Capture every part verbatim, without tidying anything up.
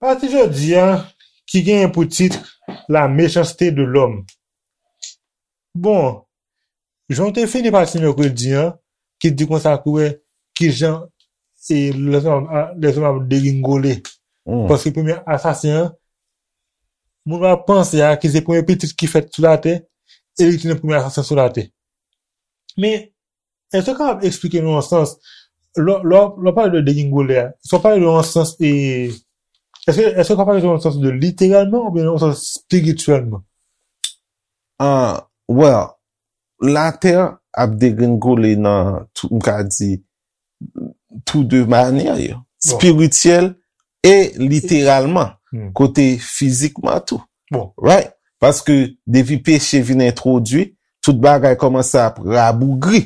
Pati jodi a, ki genyen pou tit La méchanceté de l'homme. Bon, jan w te fini pati mèkredi an, ki di konsa ki wè ki jan e lèzòm ap, lèzòm ap degringole. Paske premye asasen an, moun ap panse a ki se premye pitit ki fèt sou latè, e li ki te premye asasen sou latè. Men, èske w kapab eksplike nou an sans, lè, lè, lè w pale de degringole a, èske w pale de an sans, e, èske, èske w pale de an sans de literalman oubyen an sans espirityèlman? Ah, well, latè ap degringole nan, tou- m ka di, tou de manyè yo. Espirityèl e literalman, kote fizikman tou. Right? Paske depi peche vin entwodui, tout bagay kòmanse ap rabougri.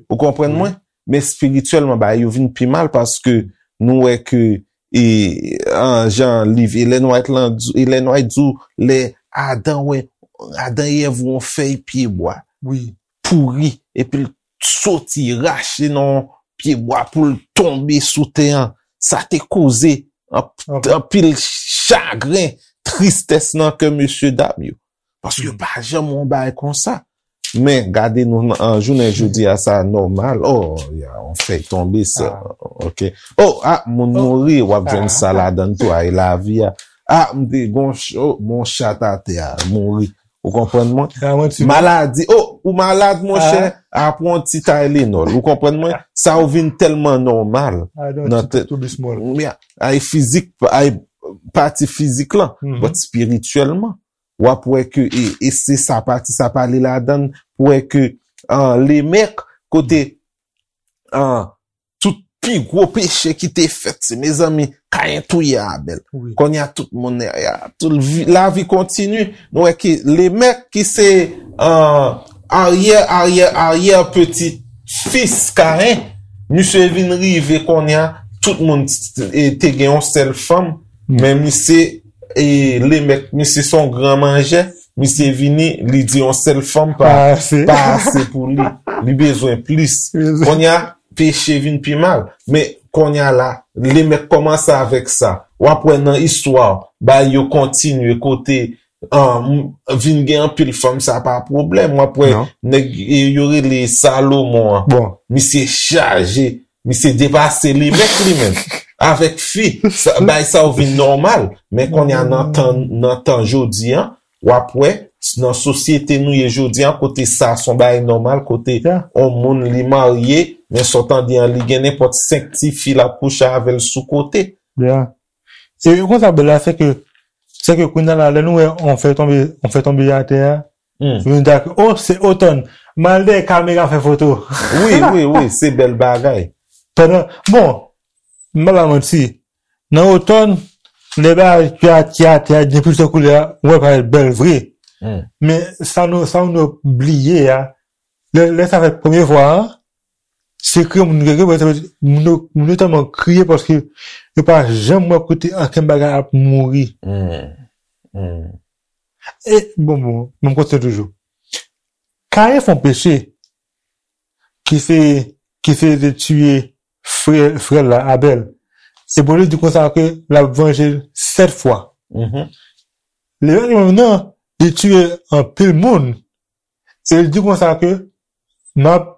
Ou konprann mwen? Men espirityèlman, bagay yo vin pi mal paske nou wè ke, e, an, jan liv Ellen White lan di, Ellen White di w, lè Adan wè, Adan e Èv wè yon fèy pyebwa pouri, epi l soti rache nan pyebwa pou l tonbe sou tè an. Sa te koze anp- anpil chagren, tristès nan kè mesye dam yo. Paske yo pa janm wè yon bagay konsa. Men, gade nou nan jounen jodi a, sa nòmal. Oh, ya, yon fèy tonbe sa. Ok. Oh, ah, moun mouri, w ap jwenn sa ladan l tou, ay lavi a. Ah, m te gon ch- oh, gon chat atè a, mouri. Ou konprann mwen? Maladi, oh, ou malad, monchè, a pran yon ti Tylenol. Ou konprann mwen? Sa yo vin tèlman nòmal. Nan tèt. Ay fizik, ay pati fizik lan. But espirityèlman, w ap wè ke, e, e se sa pati sa pale ladan l, pou wè ke, an, Lemèk, kote, an, tout pi gwo peche ki te fèt, se, mezanmi, Kayen touye Abèl. Kounye a, tout moun, ya, tout vi- lavi kontini. Nou wè ke Lemèk, ki se, an, aryè, aryè, aryè peti fis Kayen, misye vin rive kounye a, tout moun t- e, te gen yon sèl fanm, men misye, e, Lemèk, misye se yon gran manjè, misye vini, li di yon sèl fanm pa, pa ase pou li. Li bezwen plis. Kounye a, peche vin pi mal. Men, kounye a la, Lemèk kòmanse avèk sa. W ap wè nan istwa, bagay yo kontinye kote, an, m- vin gen anpil fanm, sa pa pwoblèm. W ap wè nèg, e, yo rele Salomon an. Misye chaje, misye depase Lemèk li menm. Avèk fi, sa- bagay sa yo vin nòmal. Men kounye a nan tan, nan tan jodi an, w ap wè, nan sosyete nou ye jodi an, kote sa se yon bagay nòmal, kote yon moun li marye, men sa w tande an, li gen nenpòt senk ti fi l ap kouche avè l sou kote. Ya. E konsa, bèl la, se ke, se ke kounye a la, lè nou wè on fè tonbe, on fè tonbe atè a, nou di, oh, se Otòn. M al dèyè kamera fè foto. Wi, wi, wi, se bèl bagay. Pandan, bon, m pa ba manti, nan Otòn, lè bagay ki a- ki atè a, gen plizyè koulè a, ou wè parèt bèl vre. Men sa nou, sa nou bliye a, lè, lè sa fèt premye fwa a, se kriye moun yo kriye, moun yo, moun yo tèlman kriye paske yo pa janm wè kote ankenn bagay ap mouri. E, bon, bon, m ap kontinye toujou. Kayen fè yon peche ki se, ki se de tiye frè, frè l la, Abèl. E Bondye di konsa ke l ap vanje l sèt fwa. Lemèk li menm nan, li tiye anpil moun. E li di konsa ke m ap,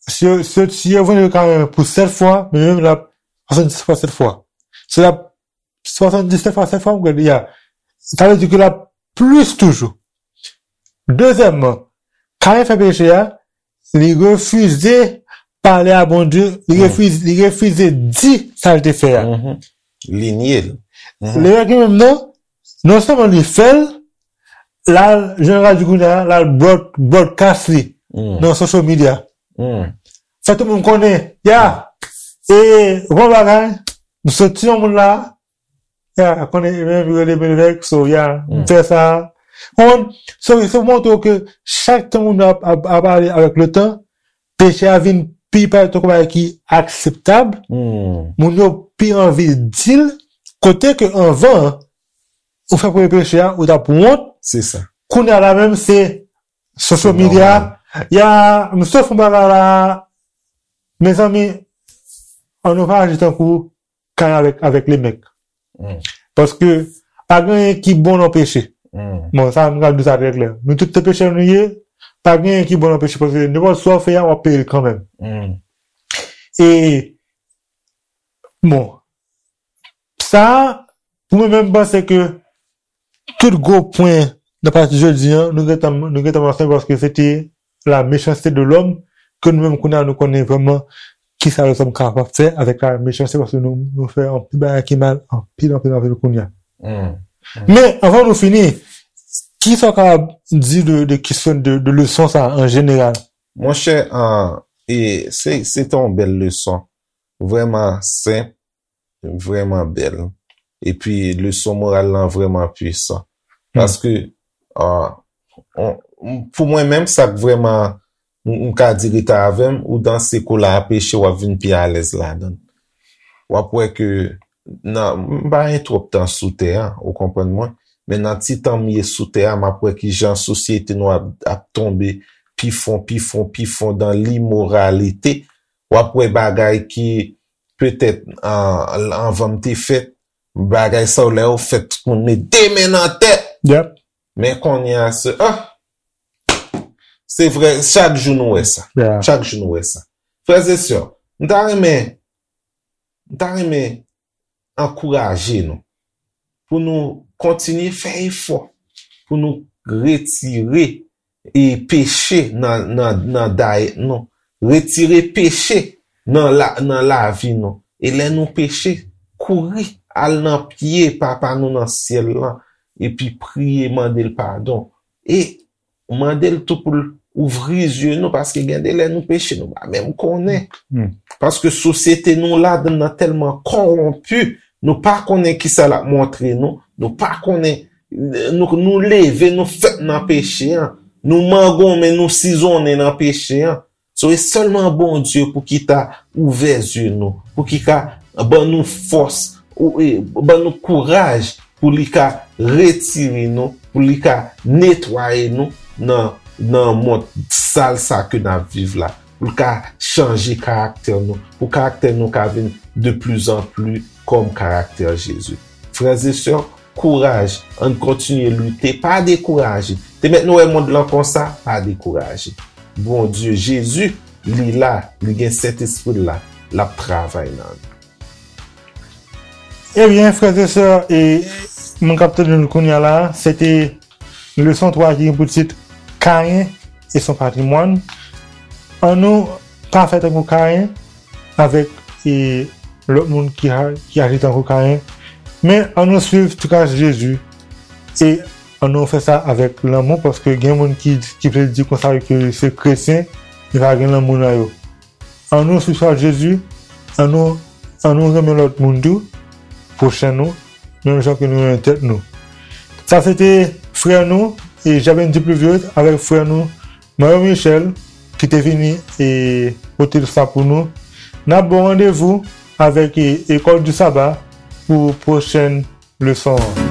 si yo, si yo, si yo vanje Kayen pou sèt fwa, men li menm l ap swasanndisèt fwa sèt fwa. Se l ap swasanndisèt fwa sèt fwa, m kwè, ya. Sa vle di ke l ap plis toujou. Dezyèmman, Kayen fè peche a, li refize pale a Bondye, li refize, li refize di sa l te fè a. Li nye l. Lemèk li menm nan, non sèlman li fè l, l al, jan Radyo kounye a, l al broad- broadcast li nan social media. Fè tout moun konnen, ya, e, bon bagay, m soti yon moun la, ya, konnen, e menm rele Benedek, so, ya, m fè sa. Konprann? So, se pou montre w ke chak tan moun ap, ap, ap ale avèk le tan, peche a vin pi parèt tankou bagay ki akseptab, moun yo pi anvi di l, kote ke anvan, ou fè premye peche a, ou t ap wont. Se sa. Kounye a la menm, se Social media, ya, m sot fè bagay la, mezanmi, ann nou pa aji tankou Kayen avèk, avèk Lemèk. Paske pa gen anyen ki bon nan peche. Bon, sa, m ka di sa trè klè. Nou tout se pechè nou ye, pa gen anyen ki bon nan peche, paske nenpòt sa w fè a, w ap peye l kanmenm. E, bon, sa, pou mwen menm, m panse ke tout gwo pwen nan pati jodi an, nou gentan, nou gentan mansyone paske se te la méchanceté de l'homme ke nou menm kounye a nou konnen vrèman kisa lèzòm kapab fè avèk la méchanceté paske nou, nou fè anpil bagay ki mal, anpil, anpil, anpil kounye a. Men, anvan nou fini, kisa w kapab di de, de kesyon de, de leson sa an jeneral? Monchè, e, se, se te yon bèl leson. Vrèman senp, vrèman bèl. Epi leson moral lan vrèman pwisan. Paske, ah, on, pou mwen menm, sa k vrèman, m, m ka di rete avè m, ou danse kou la a peche, w ap vin pi alèz ladan l. W ap wè ke, nan, m pa gen twòp tan sou tè a, ou konprann mwen, men nan ti tan m ye sou tè a, m ap wè kijan sosyete nou ap, ap tonbe pi fon, pi fon, pi fon dan limoralite. W ap wè bagay ki, petèt, an, anvan m te fèt, bagay sa yo lè yo fèt, tout moun met de men nan tèt. Men kounye a, se, ah! Se vre, chak jou nou wè sa. Chak jou nou wè sa. Frè e sè, m ta renmen, m ta renmen ankouraje nou pou nou kontinye fè efò pou nou retire e peche nan, nan, nan dayèt nou. Retire peche nan la, nan lavi nou. E lè nou peche, kouri al nan pye Papa nou nan syèl lan, epi priye, mande l padon. E mande l tou pou l ouvri zye nou, paske gen de lè nou peche, nou pa menm konnen. Paske sosyete nou ladan nan tèlman kòwonpi, nou pa konnen kisa l ap montre nou, nou pa konnen, nou, nou leve, nou fèt nan peche an, nou mangonmen, nou sizonnen nan peche an. So, e sèlman Bondye pou ki ta ouvè zye nou, pou ki ka ban nou fòs, ou, e, ban nou kouraj, pou li ka retire nou, pou li ka netwaye nou nan, nan mond sal sa ke n ap viv la, pou l ka chanje karaktè nou, pou karaktè nou ka vin de plus en plus kòm karaktè Jezi. Frè e sè, kouraj, ann kontinye lite, pa dekouraje. Te mèt nou wè mond lan konsa, pa dekouraje. Bondye, Jezi, li la, li gen Sentespri l la, l ap travay nan nou. Ebyen, frè e sè, e moun k ap tande nou kounye a la, se te leson twa ki gen pou tit Kayen et son patrimoine. Annou pa fè tankou Kayen avèk, e, lòt moun ki a-, ki aji tankou Kayen. Men annou swiv tras Jezi e annou fè sa avèk lanmou, paske gen moun ki, ki vle di konsa ke se kretyen, men pa gen lanmou nan yo. Annou swiv tras Jezi, annou, annou renmen lòt moun tou, pwochen nou, menm jan ke nou renmen tèt nou. Sa se te frè nou, e Jaben Dipluviose, avèk frè nou, Mario Michel, ki te vini e pote sa pou nou. N ap ba w randevou avèk, e, École du Sabbat pou pwochèn leson an.